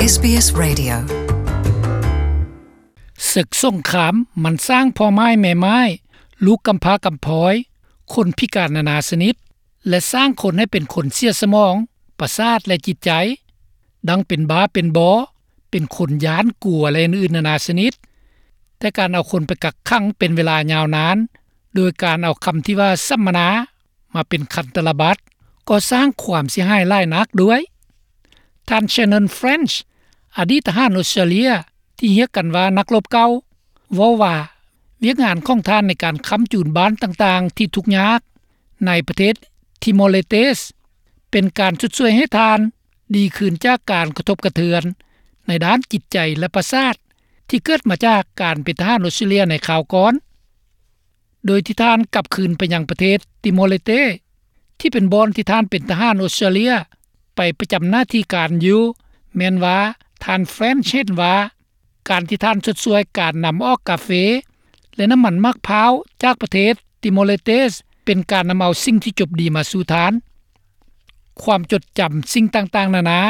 ເອສບີເອສ ເຣດິໂອ ເສິກສົງຄາມມັນສ້າງພໍ່ໝ້າຍແມ່ໝ້າຍ, ລູກກຳພ້າກຳພອຍ, ຄົນພິການນານາຊະນິດ ແລະ ສ້າງຄົນໃຫ້ເປັນຄົນເສຍສະໝອງ, ປະສາດ ແລະ ຈິດໃຈ, ດັ່ງເປັນບ້າເປັນບໍ, ເປັນຄົນຢ້ານກົວ ແລະ ອື່ນໆນານາຊະນິດ. ແຕ່ການເອົາຄົນໄປກັກຂັງເປັນເວລາຍາວນານ ໂດຍການເອົາຄຳທີ່ວ່າສຳມະນາ ມາເປັນຄັນຕະລະບັດ ກໍສ້າງຄວາມເສຍຫາຍຫຼາຍນັກດ້ວຍ. ທ່ານ Shannon French ອະດີດທະຫານອົດສະຕຣາເລຍ ທີ່ຮຽກກັນວ່ານັກລົບເກົ່າ ເວົ້າວ່າ ວຽກງານຂອງທ່ານໃນການຄ້ຳຈູນບ້ານຕ່າງໆທີ່ທຸກຍາກໃນປະເທດຕິໂມເລເຕສ ເປັນການຊົດຊ່ວຍໃຫ້ທ່ານດີຂຶ້ນຈາກການກະທົບກະເທືອນໃນດ້ານຈິດໃຈ ແລະ ປະສາດ ທີ່ເກີດມາຈາກການເປັນທະຫານອົດສະຕຣາເລຍໃນຄາວກ່ອນ. ໂດຍທີ່ທ່ານກັບຄືນໄປຍັງປະເທດຕິໂມເລເຕ ທີ່ເປັນບ່ອນທີ່ທ່ານເປັນທະຫານອົດສະຕຣາເລຍໄປປະຈຳໜ້າທີ່ການຢູ່ ແມ່ນວ່າທ່ານ French ເຫັນວ່າ ການທີ່ທ່ານຊົດຊ່ວຍການນຳອອກກາເຟ ແລະ ນ້ຳມັນໝາກພ້າວຈາກປະເທດຕິໂມເລເຕສ ເປັນການນຳເອົາສິ່ງທີ່ຈົບດີມາສູ່ທ່ານ. ຄວາມຈົດຈຳສິ່ງຕ່າງໆນານາ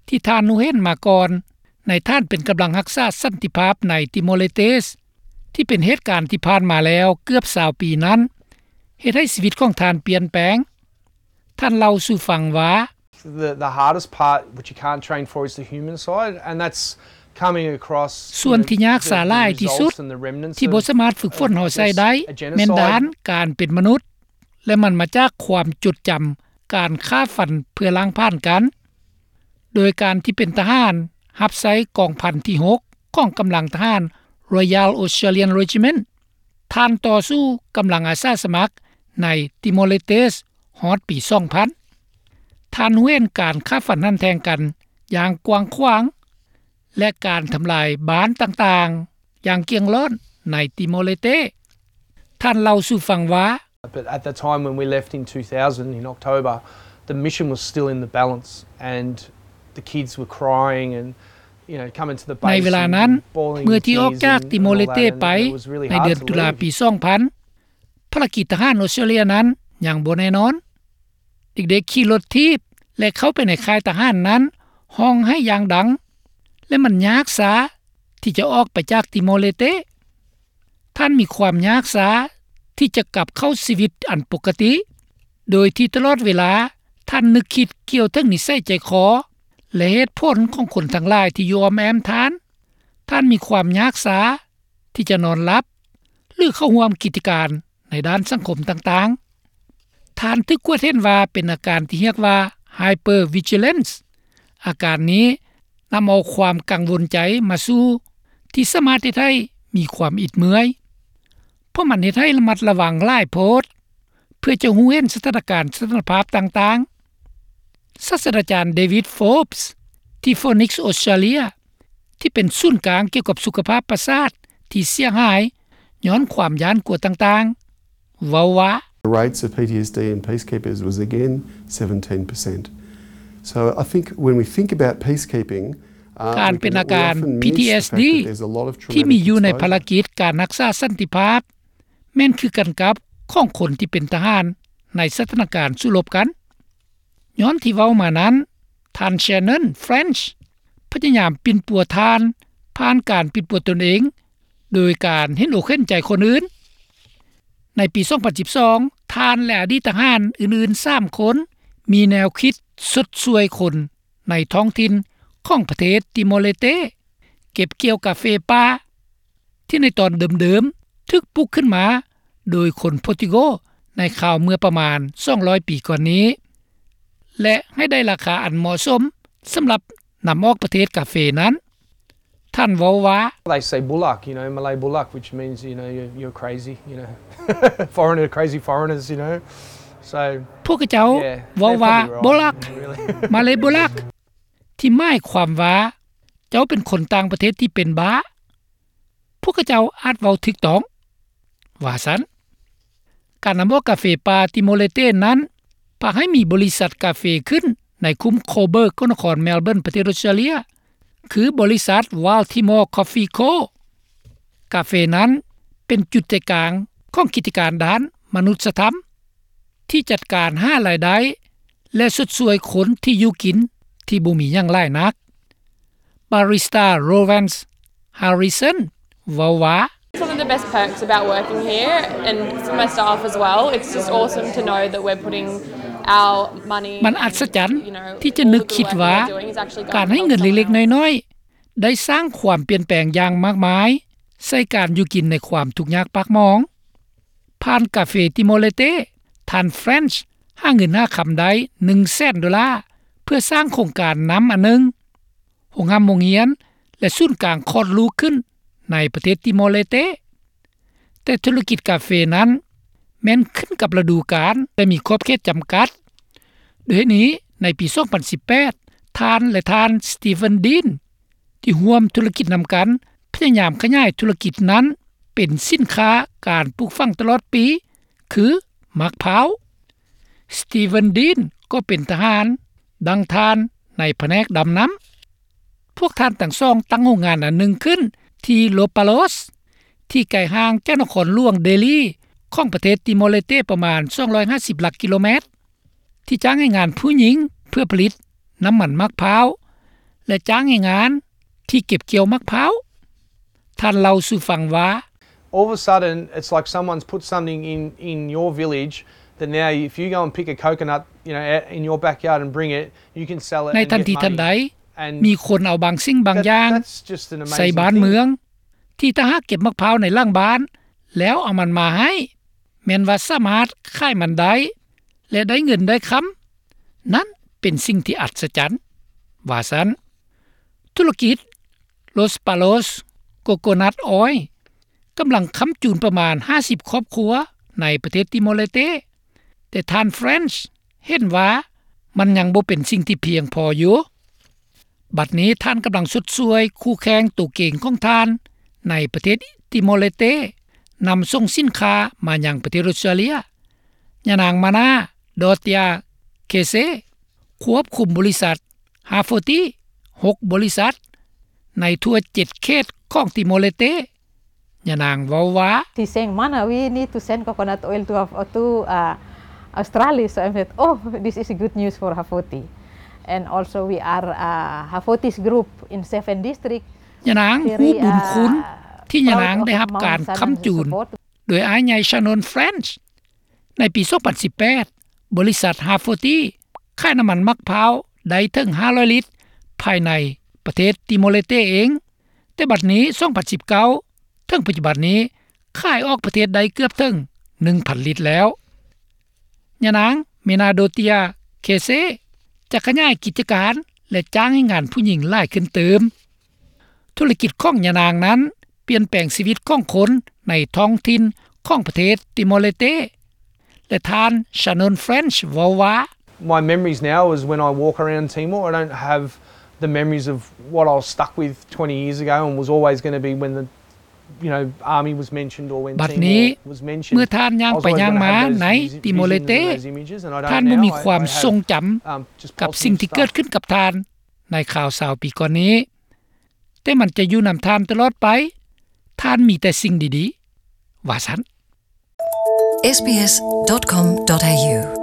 ທີ່ທ່ານຮູ້ເຫັນມາກ່ອນ ໃນທ່ານເປັນກຳລັງຮັກສາສັນຕິພາບໃນຕິໂມເລເຕສ ທີ່ເປັນເຫດການທີ່ຜ່ານມາແລ້ວເກືອບຊາວປີນັ້ນ ເຮັດໃຫ້ຊີວິດຂອງທ່ານປ່ຽນແປງ. ທ່ານເລົ່າສູ່ຟັງວ່າ The, the hardest part, which you can't train for, is the human side, and that's coming across, you know, the, the results and the remnants of, of just a genocide. ສ່ວນທີ່ຍາກສາຫຼາຍທີ່ສຸດ ທີ່ບໍ່ສາມາດຝຶກຝົນເຮົາໃຊ້ໄດ້ ແມ່ນດ້ານການເປັນມະນຸດ ແລະ ມັນມາຈາກຄວາມຈົດຈຳການຂ້າຟັນເພື່ອລ້າງຜ່ານກັນ. ໂດຍການທີ່ເປັນທະຫານຮັບໃຊ້ກອງພັນທີຫົກ ຂອງກຳລັງທະຫານ Royal Australian Regiment ທ່ານຕໍ່ສູ້ກຳລັງອາສາສະໝັກໃນຕິໂມເລເຕສຮອດປີສອງພັນ. ທ່ານຮູ້ເຫັນການຂ້າຟັນຫັນແທງກັນຢ່າງກວ້າງຂວາງ ແລະ ການທຳລາຍບ້ານຕ່າງໆຢ່າງກ້ຽງລ້ອນໃນຕິໂມເລເຕ. ທ່ານເລົ່າສູ່ຟັງວ່າ But at the time when we left in two thousand in October, the mission was still in the balance, and the kids were crying and, you know, coming to the base and bawling in tears and, and all that, and it was really hard to leave. ໃນເວລານັ້ນ ເມື່ອທີ່ອອກຈາກຕິໂມເລເຕໄປ ໃນເດືອນຕຸລາປີສອງພັນ ພາລະກິດທະຫານອົດສະຕຣາເລຍນັ້ນຍັງບໍ່ແນ່ນອນ. ເດັກໆຂີ່ລົດຖີບ ແລະ ເຂົ້າໄປໃນຄ້າຍທະຫານນັ້ນ ຮ້ອງໄຫ້ຢ່າງດັງ ແລະ ມັນຍາກຊາທີ່ຈະອອກໄປຈາກຕິໂມເລເຕ. ທ່ານມີຄວາມຍາກຊາທີ່ຈະກັບເຂົ້າຊີວິດອັນປົກກະຕິ ໂດຍທີ່ຕະຫຼອດເວລາທ່ານນຶກຄິດກ່ຽວເຖິງນິໄສໃຈຄໍ ແລະ ເຫດຜົນຂອງຄົນທັງຫຼາຍທີ່ຢູ່ອ້ອມແອ້ມທ່ານ. ທ່ານມີຄວາມຍາກຊາທີ່ຈະນອນຫຼັບ ຫຼື ເຂົ້າຮ່ວມກິດຈະການໃນດ້ານສັງຄົມຕ່າງໆ. ທ່ານຖືກກວດເຫັນວ່າເປັນອາການທີ່ຮຽກວ່າ hypervigilance. ອາການນີ້ນຳເອົາຄວາມກັງວົນໃຈມາສູ່ ທີ່ສາມາດເຮັດໃຫ້ມີຄວາມອິດເມື່ອຍ ເພາະມັນເຮັດໃຫ້ລະມັດລະວັງຫຼາຍໂພດ ເພື່ອຈະຮູ້ເຫັນສະຖານະການສະຖານະພາບຕ່າງໆ. ສາດສະດາຈານ David Forbes ທີ່ Phoenix Australia ທີ່ເປັນສູນກາງກ່ຽວກັບສຸຂະພາບປະສາດທີ່ເສຍຫາຍຍ້ອນຄວາມຢ້ານກົວຕ່າງໆ ເວົ້າວ່າ The rates of P T S D in peacekeepers was again seventeen percent. So I think when we think about peacekeeping, ການເປັນອາການ P T S D ທີ່ມີຢູ່ໃນພາລະກິດການຮັກສາສັນຕິພາບ ແມ່ນຄືກັນກັບຂອງຄົນທີ່ເປັນທະຫານໃນສະຖານະການສູ້ລົບກັນ. ຍ້ອນທີ່ເວົ້າມານັ້ນ, ທ່ານ Shannon French ພະຍາຍາມປິ່ນປົວທ່ານຜ່ານການປິ່ນປົວຕົນເອງ ໂດຍການເຫັນອົກເຫັນໃຈຄົນອື່ນ. ໃນປີສອງພັນສິບສອງ ທ່ານ ແລະ ອະດີດທະຫານອື່ນໆສາມຄົນ ມີແນວຄິດຊົດຊ່ວຍຄົນໃນທ້ອງຖິ່ນຂອງປະເທດຕິໂມເລເຕ ເກັບກ່ຽວກາເຟປ່າ ທີ່ໃນຕອນເດີມໆຖືກປຸກຂຶ້ນມາໂດຍຄົນໂປຣຕຸໂກໃນຄາວເມື່ອປະມານສອງຮ້ອຍປີກ່ອນນີ້ ແລະ ໃຫ້ໄດ້ລາຄາອັນເໝາະສົມສຳລັບນຳອອກປະເທດກາເຟນັ້ນ. ທ່ານເວົ້າວ່າ They say bullock, you know, Malay bullock, which means, you know, you're, you're crazy, you know. Foreigner, crazy foreigners, you know. So, ພວກເຂົາເຈົ້າເວົ້າວ່າ bullock, Malay bullock, ທີ່ໝາຍຄວາມວ່າ ເຈົ້າເປັນຄົນຕ່າງປະເທດທີ່ເປັນບ້າ. ພວກເຂົາເຈົ້າອາດເວົ້າຖືກຕ້ອງ ວ່າຊັ້ນ. ການນຳອອກກາເຟປ່າຕິໂມເລເຕນັ້ນ ພາໃຫ້ມີບໍລິສັດກາເຟຂຶ້ນໃນຄຸ້ມ Coburg ຂອງນະຄອນ Melbourne ປະເທດອົດສະຕຣາເລຍ ຄືບໍລິສັດ Wild Timor Coffee Co. ກາເຟນັ້ນເປັນຈຸດໃຈກາງຂອງກິດຈະການດ້ານມະນຸດສະທຳ ທີ່ຈັດການຫາລາຍໄດ້ ແລະ ຊົດຊ່ວຍຄົນທີ່ຢູ່ກິນທີ່ບໍ່ມີຫຍັງຫຼາຍນັກ. Barrister Rowance Harrison ເວົ້າວ່າ One of the best perks about working here and for my staff as well, it's just awesome to know that we're putting our money ມັນອັດສະຈັນທີ່ຈະນຶກຄິດວ່າ ການໃຫ້ເງິນເລັກໆນ້ອຍໆ ໄດ້ສ້າງຄວາມປ່ຽນແປງຢ່າງມາກມາຍ ໃສ່ການຢູ່ກິນໃນຄວາມທຸກຍາກປາກໝອງ. ຜ່ານກາເຟຕິໂມເລເຕ ທ່ານ French ຫາເງິນຫາຄຳໄດ້ ໜຶ່ງແສນໂດລາ ເພື່ອສ້າງໂຄງການນ້ຳອັນໜຶ່ງ, ໂຮງຮ່ຳໂຮງຮຽນ ແລະ ສູນກາງຄອດລູກຂຶ້ນໃນປະເທດຕິໂມເລເຕ. ແຕ່ທຸລະກິດກາເຟນັ້ນ ແມ່ນຂຶ້ນກັບລະດູການ ແລະ ມີຂອບເຂດຈຳກັດ. ດ້ວຍເຫດນີ້ ໃນປີສອງພັນສິບແປດ ທ່ານ ແລະ ທ່ານ Steven Dean ທີ່ຮ່ວມທຸລະກິດນຳກັນ ພະຍາຍາມຂະຫຍາຍທຸລະກິດນັ້ນເປັນສິນຄ້າການປູກຝັງຕະຫຼອດປີ ຄືໝາກພ້າວ. Steven Dean ກໍເປັນທະຫານດັ່ງທ່ານໃນພະແນກດຳນ້ຳ. ພວກທ່ານທັງສອງຕັ້ງໂຮງງານອັນໜຶ່ງຂຶ້ນທີ່ Lopaloos ທີ່ໄກຫ່າງຈາກນະຄອນຫຼວງເດລີຂອງປະເທດຕິໂມເລເຕປະມານສອງຮ້ອຍຫ້າສິບຫຼັກກິໂລແມັດ ທີ່ຈ້າງແຮງງານຜູ້ຍິງເພື່ອຜະລິດນ້ຳມັນໝາກພ້າວ ແລະ ຈ້າງແຮງງານທີ່ເກັບກ່ຽວໝາກພ້າວ. ທ່ານເລົ່າສູ່ຟັງວ່າ All of a sudden, it's like someone's put something in, in your village that now if you go and pick a coconut, you know, out in your backyard and bring it, you can sell it ໃນ and ທັນ get ທີທັນໃດ money. And ມີຄົນເອົາບາງສິ່ງບາງຢ່າງ that's, that's just an ໃສ່ amazing ບ້ານ thing. ເມືອງ ທີ່ຖ້າຫາກເກັບໝາກພ້າວໃນຫຼັງບ້ານ ແລ້ວເອົາມັນມາໃຫ້ ແມ່ນວ່າສາມາດຂາຍມັນໄດ້ ແລະ ໄດ້ເງິນໄດ້ຄຳ. ນັ້ນເປັນສິ່ງທີ່ອັດສະຈັນ ວ່າຊັ້ນ. ທຸລະກິດ Lopaloos Coconut Oil ກຳລັງຄ້ຳຈູນປະມານຫ້າສິບຄອບຄົວໃນປະເທດຕິໂມເລເຕ, ແຕ່ທ່ານ French ເຫັນວ່າມັນຍັງບໍ່ເປັນສິ່ງທີ່ພຽງພໍຢູ່. ບັດນີ້ທ່ານກຳລັງຊົດຊ່ວຍຄູ່ແຂ່ງໂຕເກັ່ງຂອງທ່ານໃນປະເທດຕິໂມເລເຕ ນຳສົ່ງສິນຄ້າມາຍັງປະເທດອົດສະຕຣາເລຍ. ຍານາງ Mana Dotia Kese ຄວບຄຸມບໍລິສັດ Hafoti ຫົກບໍລິສັດ ໃນທົ່ວເຈັດເຂດຂອງຕິໂມເລເຕ. ຍານາງເວົ້າວ່າ She's saying, "Mana, we need to send coconut oil to Haf-, to, uh, Australia." So I said, "Oh, this is good news for Hafoti." And also we are, uh, Hafoti's group in Seven District. ຍານາງຮູ້ບຸນຄຸນທີ່ຍານາງໄດ້ຮັບການຄ້ຳຈູນໂດຍອ້າຍໃຫຍ່ Shannon French. ໃນປີສອງພັນສິບແປດ ບໍລິສັດ Hafoti ຂາຍນ້ຳມັນໝາກພ້າວໄດ້ເຖິງຫ້າຮ້ອຍລິດ ພາຍໃນປະເທດຕິໂມເລເຕເອງ. ແຕ່ບັດນີ້ ສອງພັນສິບເກົ້າ ເຖິງປັດຈຸບັນນີ້ ຂາຍອອກປະເທດໄດ້ເກືອບເຖິງໜຶ່ງພັນລິດແລ້ວ. ຍານາງ Mana Dotia Kese ຈະຂະຫຍາຍກິດຈະການ ແລະ ຈ້າງແຮງງານຜູ້ຍິງຫຼາຍຂຶ້ນຕື່ມ. ທຸລະກິດຂອງຍານາງນັ້ນປ່ຽນແປງຊີວິດຂອງຄົນໃນທ້ອງຖິ່ນຂອງປະເທດຕິໂມເລເຕ ແລະ ທ່ານ Shannon French ເວົ້າວ່າ My memories now is when I walk around Timor, I don't have the memories of what I was stuck with twenty years ago and was always gonna be when the, you know, army was mentioned or when ບັດນີ້ Timor was mentioned. ເມື່ອທ່ານຍ່າງໄປຍ່າງມາໃນຕິໂມເລເຕ ທ່ານບໍ່ມີຄວາມຊົງຈຳກັບສິ່ງທີ່ເກີດຂຶ້ນກັບທ່ານໃນຄາວຊາວປີກ່ອນນີ້. ແຕ່ມັນຈະຢູ່ນຳທ່ານຕະຫຼອດໄປ. ທ່ານມີແຕ່ສິ່ງດີໆ ວ່າຊັ້ນ. SBS dot com dot A U